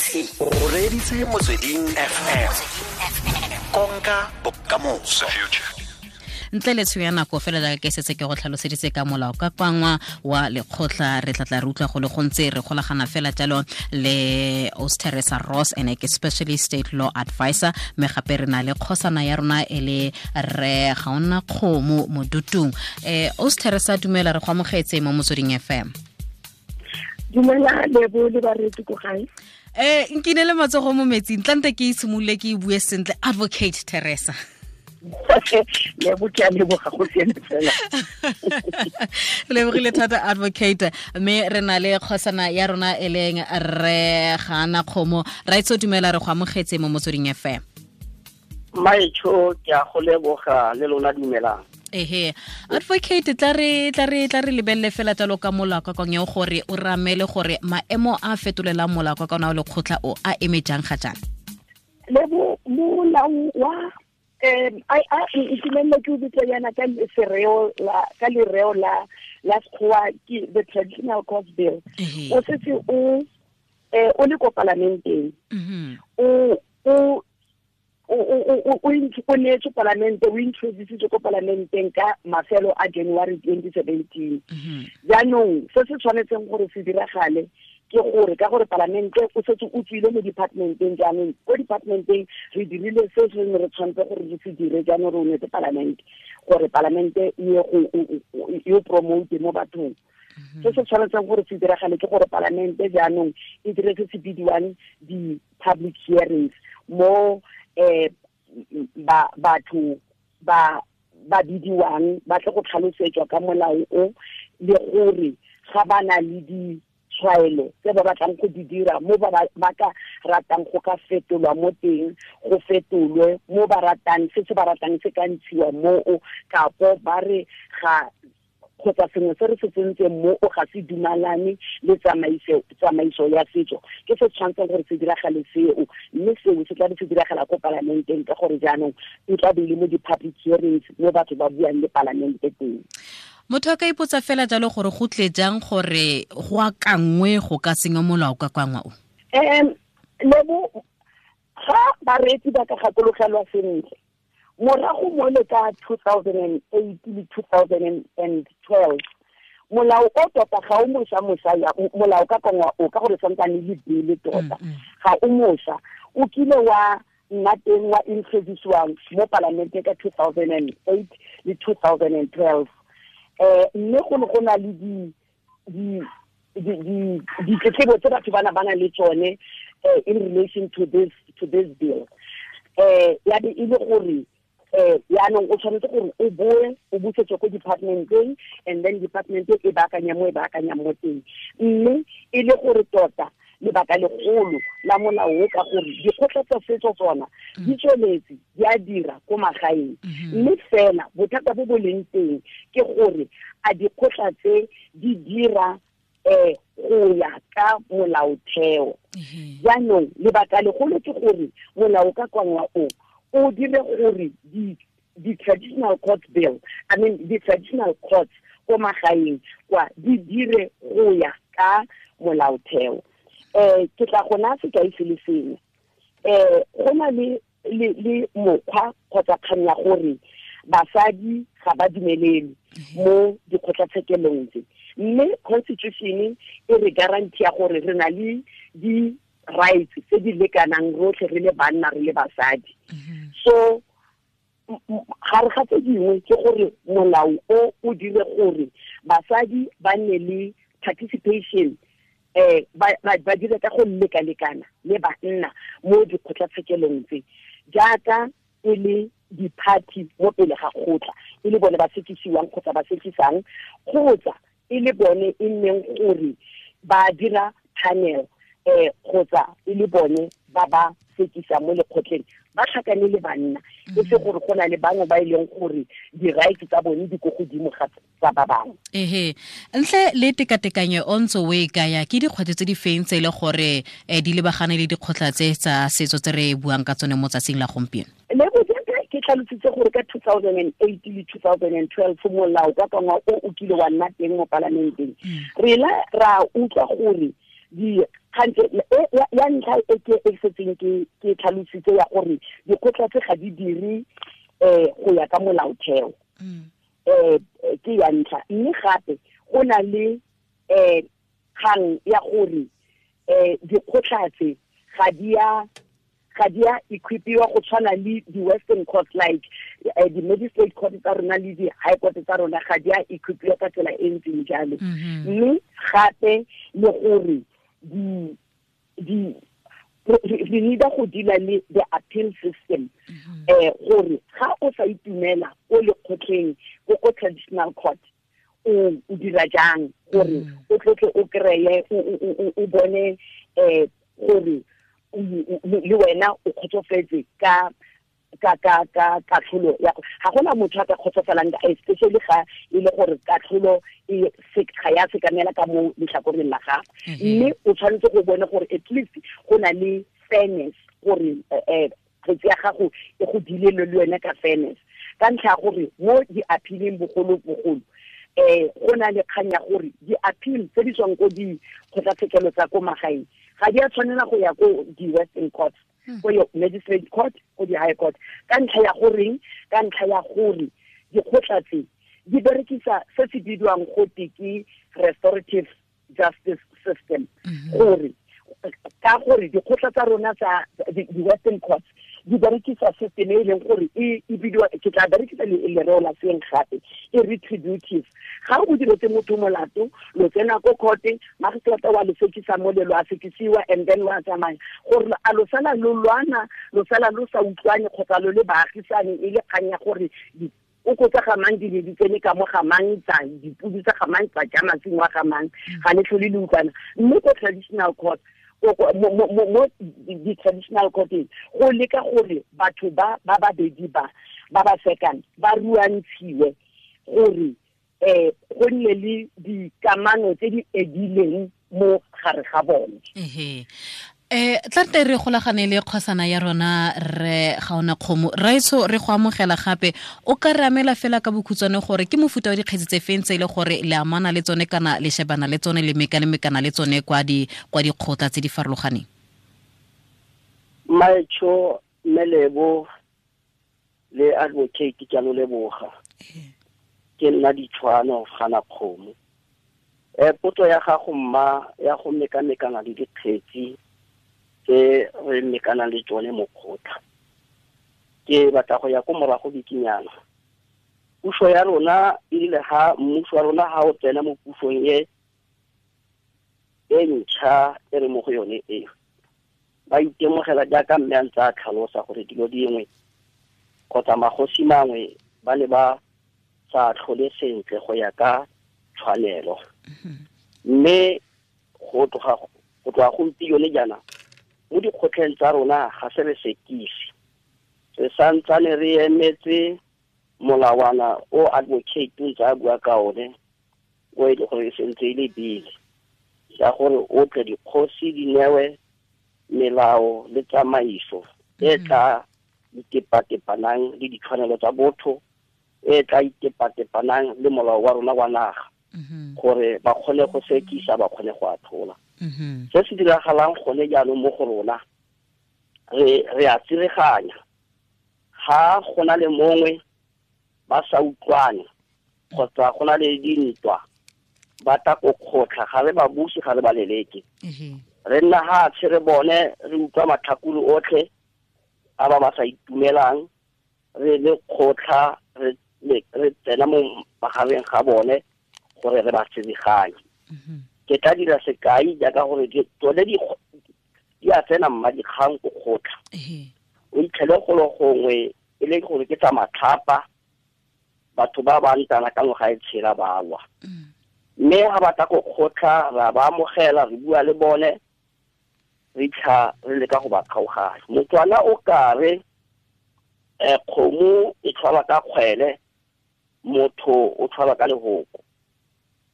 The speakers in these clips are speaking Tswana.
O reditse Motsweding FM. Konka bokamoso. Ntle le tsho ya nako fela jaaka ke setse ke go tlhaloseditse ka molao ka kwangwa wa lekgotla, re tlatla re utlwa go le gontse re golagana fela jalo le Aus Teresa Ross, ene ke specialist state law advisor, mme gape re na le kgosana ya rona e le re Gaona Kgomo Modutung. Aus Teresa, dumela, re go amogetse mo Motsweding FM. Dumela Lebo le bareetsi ko gae. Nkine le matsogo mo metsing, tlante ke itshimolole ke e bue sentle, Advocate Teresa. Lebo, ke a leboga, go siame fela. Re lebogile thata, Advocate, mme re na le kgosana ya rona e leng re Gana Kgomo. Raitso, dumela, re go amogetse mo Motsweding FM. Maetsho, ke a go leboga, le lona dumelang. Ehe, Advocate, tla re lebelele fela jalo ka molao ka kong gore o ramele gore maemo a fetolelang molao ka kona o lekgotla o a eme jang ga jang. Lebo, molao wa a itumelele ke o bitsa yana ka sereo la ka lereo la Sekgowa ke the Traditional Court Bill. O setse o le ko palamenteng. O neetswe palamente, o introducitswe ko palamenteng ka mafelo a January 2017. Jaanong se se tshwanetseng gore se diragale ke gore ka gore palamente o setse o tswile mo departmenteng, jaanong ko departmenteng re dirile se se ne re tshwanetse gore re se dire, jaanong re o neetse palamente gore palamente e ye go e o promote mo bathong. Se se tshwanetseng gore se diragale ke gore palamente jaanong e dire se se bidiwang di-public hearings mo ba batho ba bidiwang ba tle go tlhalosetswa ka molao o, le gore ga ba na le ditshwaelo tse ba batlang go di dira mo ba ka ratang go ka fetolwa mo teng, go fetolwe mo ba ratang, se se ba ratang se ka ntshiwa moo, kapo ba re ga kgotsa sengwe se re se tsentseng mo o ga se dumalane le tsamaiso ya setso. Ke se tshwanetseng gore se diragale seo, mme seo se tla be se diragala ko palamenteng ka gore jaanong e tla be e le mo di-public hearings mo batho ba buang le palamente teng. Motho a ka ipotsa fela jalo gore go tle jang gore go akangwe go ka senya molao ka kwangwa o. Lebo, ga bareetsi ba ka gakologelwa sentle, morago mo le ka 2008 le 2012, molao o tota ga o moša moša ya molao ka kongwa o, ka gore santsane le bele tota ga o moša, o kile wa nna teng, wa introduciwang mo palamenteng ka 2008 le 2012, mme go ne go na le di ditletlebo tse batho ba na le tsone in relation to this bill. Ya be e le gore yaanong o tshwanetse gore o boe o busetswe ko departmenteng, and then department e baakanya mo e baakanyang mo teng, mme e le gore tota lebaka legolo la molao o ka gore dikgotla tsa setso tsona di tsweletse di a dira ko magaeng, mme fela bothata bo bo leng teng ke gore a dikgotla tse di dira go ya ka molaotheo. Jaanong lebaka legolo ke gore molao ka kwangwa o o dire gore di traditional court bill, I mean the traditional courts ko magaeng kwa di dire go ya ka molaotheo. Ke tla gona sekai se le sengwe. Go na le mokgwa kgotsa kgang ya gore basadi ga ba dumelelwe mo dikgotlatshekelong tse, mme constitution e re guarantee ya gore re na le di rights tse di lekanang rotlhe, re le banna, re le basadi. So gare ga tse dingwe ke gore molao o o dire gore basadi ba nne le participation, ba dire ka go lekalekana le banna mo dikgotlatshekelong tse, jaaka e le di-party mo pele ga kgotla, e le bone ba sekisiwang kgotsa ba sekisang, kgotsa e le bone e nneng gore ba dira panel, kgotsa e le bone ba ba sekisang mo lekgotleng ba tlhakane le banna, e se gore go na le bangwe ba e leng gore di-rights tsa bone di ko godimo ga tsa ba bangwe. Ehe, ntle le tekatekanyo o ntse o e kaya, ke dikgwetlho tse di feng tse e le gore di lebagane le dikgotla tse tsa setso tse re buang ka tsone mo tsatsing la gompieno? Le jaaka ke tlhalositse gore ka 2008 le 2012 molao ka kangwa o o kile wa nna teng mo palamenteng, re la ra utlwa gore di Gantse ya ntlha e ke e setseng ke tlhalositse ya gore dikgotla tse ga di dire go ya ka molaotheo. Ke ya ntlha. Mme gape go na le kgang ya gore dikgotla tse ga di a equipiwa go tshwana le di-western court, like di-magistrate court tsa rona le di-high court tsa rona ga di a equipiwa ka tsela e ntseng jalo. Mme gape le gore re need-a go deala le the appeal system, gore ga o sa itumela ko lekgotleng ko traditional court o dira jang gore o tlotle o kreye o bone gore le wena o kgotsofetse ka katlholo ya ga gona motho a ka kgotsofalang, especially ga e le gore katlholo e ga ya sekamela ka mo letlhakoreng la gago. Mme o tshwanetse go bone gore at least go na le fairness, gore kgetsi ya gago e go dilele le wena ka fairness, ka ntlha ya gore mo di-appealing bogolo-bogolo go na le kgang ya gore di-appeal tse di tswang ko dikgotlatshekelo tsa ko magaeng ga di a tshwanela go ya ko di-western court, ko magistrate court, ko di-high court, ka ntlha ya goreng? Ka ntlha ya gore dikgotla tse di berekisa se se bidiwang gote ke restorative justice system, gore ka gore dikgotla tsa rona tsa di-western courts di berekisa system e leng gore e bidiwa, ke tla berekisa lereo la seng gape, e retributive. Ga o diretse motho molato, lo tsena ko court, magistrata wa lo sekisa mo le lo a sekisiwa, and then wa tsamaya, gore a lo sala lo lwana, lo sala lo sa utlwane kgotsa lo le baagisane, e le kgang ya gore o kotsa ga mang di ne di tsene ka mo ga mang tsa dipudi tsa ga mang tsa ja masimo a ga mang, ga le tlhole le utlwana. Mme ko traditional court, mo di-traditional courteng go leka gore batho ba babedi ba ba sekang ba ruantshiwe gore go nne le dikamano tse di edileng mo gare ga bone. Tla re golagane le kgosana ya rona re Gaona Kgomo. Raetsho, re go amogela gape. O ka re amela fela ka bokhutshwane gore ke mofuta wa dikgetsi tse feng tse e le gore le amana le tsone kana le shebana le tsone le mekamekana le tsone kwa dikgotla tse di farologaneng? Maetsho, Melebo le advocate ke a lo leboga. Ke nna Ditshwano Gana Kgomo. Potso ya gago mma ya go mekamekana le dikgetsi tse re mekanang le tsone mo kgotla, ke batla go ya ko morago bikinyana. Puso ya rona e rile ha mmuso wa rona ha o tsena mo pusong e ntšha e re mo go yone e, ba itemogela jaaka mme a ntse a tlhalosa gore dilo dingwe kgotsa magosi mangwe ba ne ba sa tlhole sentle go ya ka tshwanelo. Mme go tloga gompieno jaana mo dikgotleng tsa rona ga se re sekise, re santsane re emetse molawana o advocate ntse a bua ka one, o e le gore e sentse e le bile ya gore o tle dikgosi di newe melao le tsamaiso e tla itepatepanang le ditshwanelo tsa botho, e tla itepatepanang le molao wa rona wa naga, gore ba kgone go sekisa, ba kgone go atlhola. Se se diragalang gone jaanong mo go rona, re a tsireganya. Ga go na le mongwe ba sa utlwane kgotsa go na le dintwa, ba tla ko kgotla, ga re ba buse, ga re ba leleke. Re nna hatshe re bone, re utlwa matlhakore otlhe a ba ba sa itumelang, re le kgotla, re tsena mo magareng ga bone gore re ba tsebeganye. Ke tla dira sekai jaaka gore tsone di a tsena mma dikgang ko kgotla. O itlhele golo gongwe e le gore ke tsa matlhapa, batho ba ba ntana ka ngwaga e tshela ba lwa. Mme ga ba tla ko kgotla, ra ba amogela, re bua le bone, re tlha re leka go ba kgaoganya. Motswana o kare kgomo e tshwara ka kgwele, motho o tshwara ka lehoko.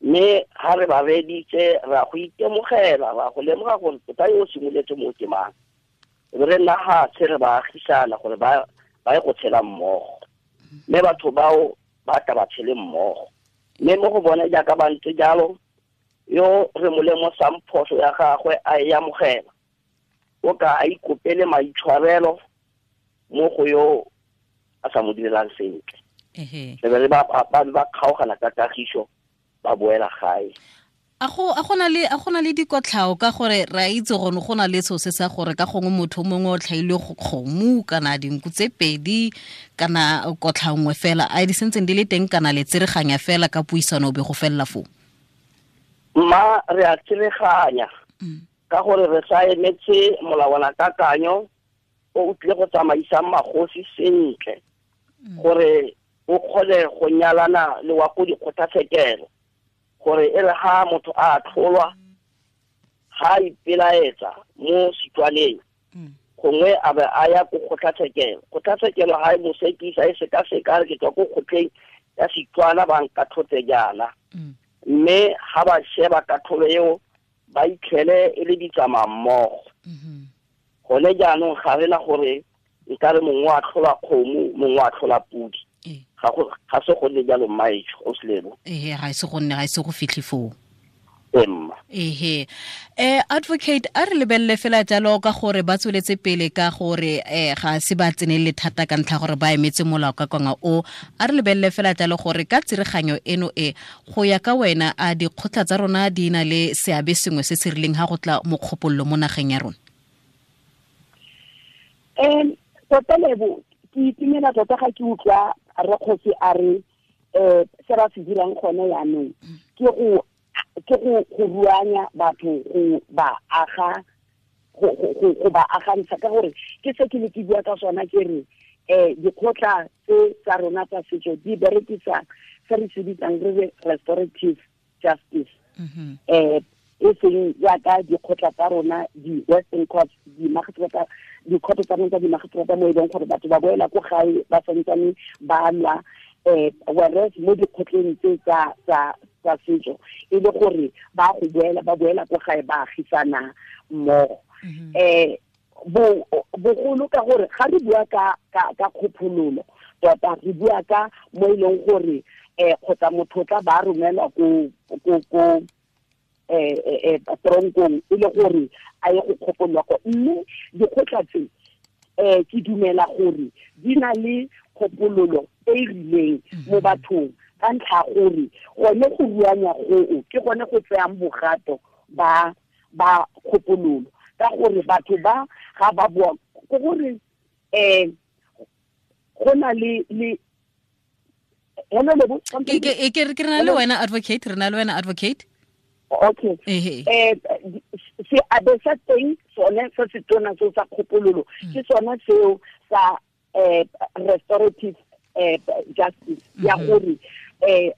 Mme ha re ba reditse, ra go itemogela, ra go lemoga gore tota yo o simoletse mo ke mang. Re nna hatshe re ba agisana gore ba ye go tshela mmogo. Mme batho bao ba tla ba tshele mmogo. Mme mo go bone jaaka ba ntse jalo, Yo re mo lemosang phoso ya gagwe a e amogela, o ka a ikopele maitshwarelo mo go yo a sa mo direlang sentle. Re be ba ba kgaogana ka kagiso, ba boela gae. A go na le dikotlhao ka gore re a itse gone go na le seo se sa gore ka gongwe motho mongwe o tlhailwe go kgomo kana dinku tse pedi kana kotlhao nngwe fela, a di sentseng di le teng kana le tsereganya fela ka puisano be go felela foo? Mma, re a tsereganya ka gore re sa emetse molawana kakanyo o o tlile go tsamaisang magosi sentle gore o kgone go nyalana le wa ko dikgotlatshekelo, gore e re ha motho a tlholwa ga ipelaetsa mo Setswaneng gongwe a be a ya ko kgotlatshekelo. Kgotlatshekelo ga e mo sekisa, e sekaseka re ke tswa ko kgotleng ya Setswana ba nkatlhotse jaana, mme ga ba sheba katlholo eo ba itlhele e le ditsamaya mmogo. Gone jaanong ga re na gore nkare mongwe a tlhola kgomo, mongwe a tlhola podi. Ga se go nne jalo, mmaetsho o selebo. Ehe, ga se go nne, ga se go fitlhe foo. Emma. Ehe. Advocate, a re lebelele fela jalo ka gore ba tsweletse pele ka gore ga se ba tsenele thata ka ntlha gore ba emetse molao ka kwanga o. A re lebelele fela jalo gore ka tsireganyo eno e go ya ka wena, a dikgotla tsa rona di na le seabe sengwe se se rileng ha go tla mo kgopololo mo nageng ya rona? Tota Lebo, ke itumela tota ga ke utlwa Rrekgosi a re se ba se dirang gone jaanong ke go ruanya batho, go ba aga, go ba agantsha, ka gore ke se ke ne ke bua ka sona ke re dikgotla tse tsa rona tsa setso di berekisa se re se bitsang re re restorative justice. E seng jaaka dikgotla tsa rona di-Western courts, dikgotla tsa rona tsa dimagiseterata mo e leng gore batho ba boela ko gae ba santsane ba lwa, whereas mo dikgotleng tse tsa setso e le gore ba go boela, ba boela ko gae ba agisana mmogo. Bogolo ka gore ga re bua ka kgophololo tota re bua ka mo e leng gore kgotsa motho o tla ba romelwa ko tronkong e le gore a ye go kgopolwa ko. Mme dikgotla tse ke dumela gore di na le kgopololo e e rileng mo bathong ka ntlha gore gone go ruanya goo ke gone go tseyang bogato ba kgopololo, ka gore batho ba ga ba bua ke gore go na le hello Lebo, ke re na le wena advocate, re na le wena advocate. Okay. Seabe sa teng sone se se tona seo sa kgopololo ke sone seo sa restorative justice ya gore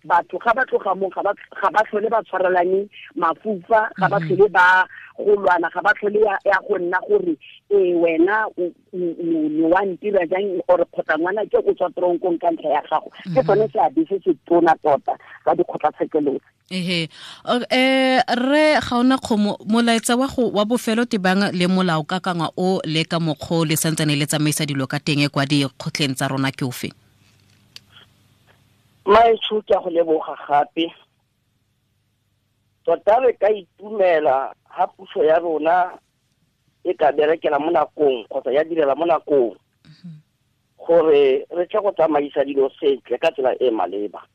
batho ga ba tloga mo ga ba tlhole ba tshwarelane mafufa, ga ba tlhole ba go lwana, ga ba tlhole ya go nna gore wena o ne wa ntira jang or kgotsa ngwana ke o tswa tronkong ka ntlha ya gago. Ke sone seabe se se tona tota sa dikgotlatshekelo. Ehe. Re ga ona kgomo molaetsa wa go wa bofelo tebang le molao ka kangwa o le ka mokgo le santsane le tsamaisa dilo ka teng kwa dikgotleng tsa rona ke ofe? Maetsho, ke a go leboga gape. Tota re ka itumela ha puso ya rona e ka berekela mo nakong kgotsa ya direla mo nakong gore re tle go tsamaisa dilo sentle ka tsela e maleba.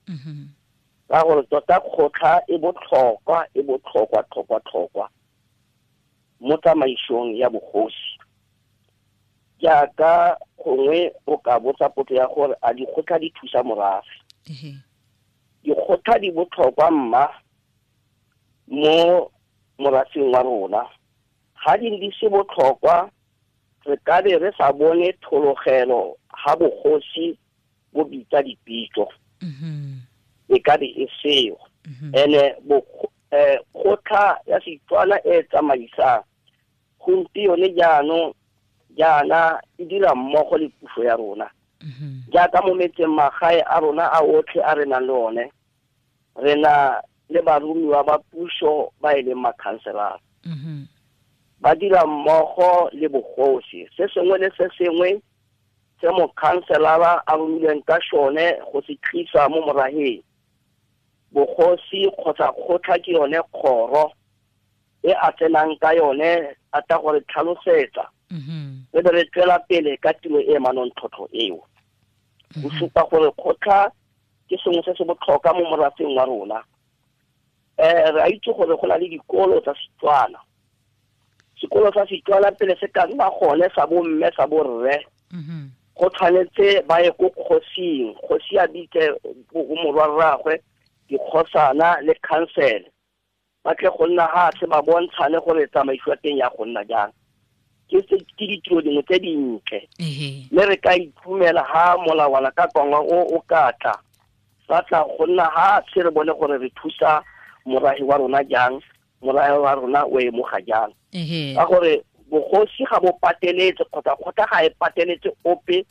Ka gore tota kgotla e botlhokwa, e botlhokwa tlhokwa tlhokwa mo tsamaisong ya bogosi. Jaaka gongwe o ka botsa potso ya gore a dikgotla di thusa morafe. Dikgotla di botlhokwa mma mo morafeng wa rona. Ga di di se botlhokwa, re ka be re sa bone thologelo ga bogosi bo bitsa dipitso. E ka be e seo. Ene kgotla ya Setswana e tsamaisang gompieno jaanong jaana e dira mmogo le puso ya rona. Jaaka mo metseng magae a rona a otlhe a re nang le one, re na le baromiwa ba puso ba e leng makhanselara. Ba dira mmogo le bogosi. Se sengwe le se sengwe se mokhanselara a romilweng ka sone go se tlisa mo moraheng, Bogosi kgotsa kgotla ke yone kgoro e a tsenang ka yone a tla gore tlhalosetsa. Re be re tswela pele ka tiro e manontlhotlho eo. Go supa gore kgotla ke sengwe se se botlhokwa mo morafeng wa rona. Re a itse gore go na le dikolo tsa Setswana. Sekolo sa Setswana pele se ka nna gone sa bomme sa borre. Go tshwanetse ba ye ko kgosing, kgosi a bitse morwarraagwe, dikgosana le council. Ba tle go nna hatshe ba bontshane gore tsamaiso ya teng ya go nna jang. Ke ditiro dingwe tse dintle. Mme re ka itumela ha molawana ka kwangwa o ka tla. Ba tla go nna hatshe re bone gore re thusa morahi wa rona jang, morahi wa rona o emoga jang. Ka gore bogosi ga bo pateletse kgotsa kgotla ga e pateletse ope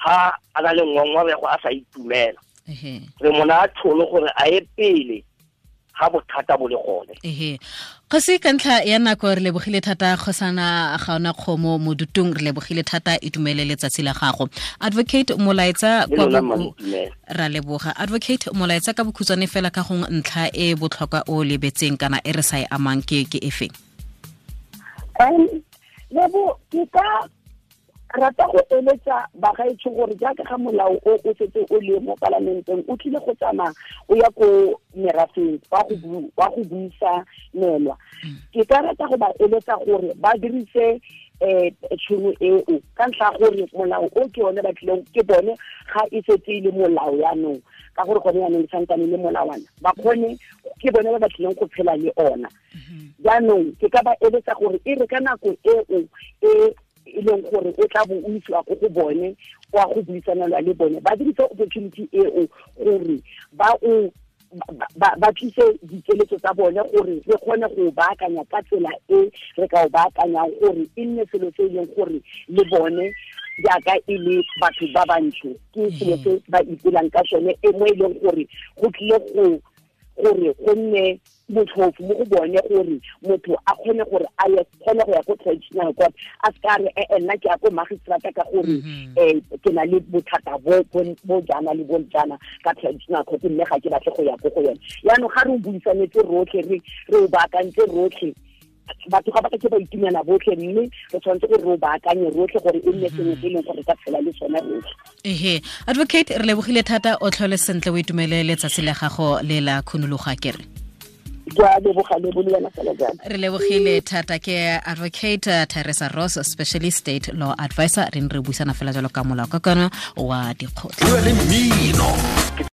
ha a na le ngongorego a sa itumela. Re mona tšhono gore a ye pele ga bothata bo le gone. Kgosi, ka ntlha ya nako re lebogile thata kgosana Gaona Kgomo Modutung, re lebogile thata, itumele letsatsi la gago. Advocate Molaetsa kwa ra leboga. Advocate Molaetsa ka bokhutshwane fela ka gong ntlha e botlhokwa o lebetseng kana e re sa e amang ke efe? Lebo, ke ka rata go eletsa bagaetsho gore jaaka ga molao o o setse o le mo palamenteng o tlile go tsamaya o ya ko merafeng wa go buisanelwa. Ke ka rata go ba eletsa gore ba dirise tšhono eo ka ntlha gore molao o ke one ba tlileng ke bone ga e setse e le molao yaanong, ka gore gone yaanong e santsane le molawana, ba kgone ke bone ba ba tlileng go phela le ona. Jaanong ke ka ba eletsa gore e re ka nako eo e e leng gore o tla bo o isiwa ko go bone kwa go buisanelwa le bone, ba dirise opportunity eo gore ba tlise dikeletso tsa bone gore re kgone go baakanya ka tsela e re ka o baakanyang gore e nne selo se e leng gore le bone jaaka e le batho ba bantsho ke selo se ba ipelang ka sone, e mo e leng gore go tlile go gore go nne motlhofo mo go bone gore motho a kgone gore a ye kgone go ya ko traditional court, a se ka re nna ke ya ko magistrata ka gore ke na le bothata bo jaana le bo jaana ka traditional court, mme ga ke batle go ya ko go yone. Jaanong ga re o buisanetse rotlhe, re o baakantse rotlhe, batho ga ba ka ke ba itumela botlhe, mme re tshwanetse gore re o baakanye rotlhe gore e nne sengwe se e leng gore ka tshela le sone rotlhe. Advocate, re lebogile thata, o tlhole sentle, o itumele letsatsi la gago le la khunologa kere. Re lebogile thata. Ke Advocate Teresa Ross, Specialist State Law Advisor. Re ne re buisana fela jalo ka molao ka kana wa dikgotla.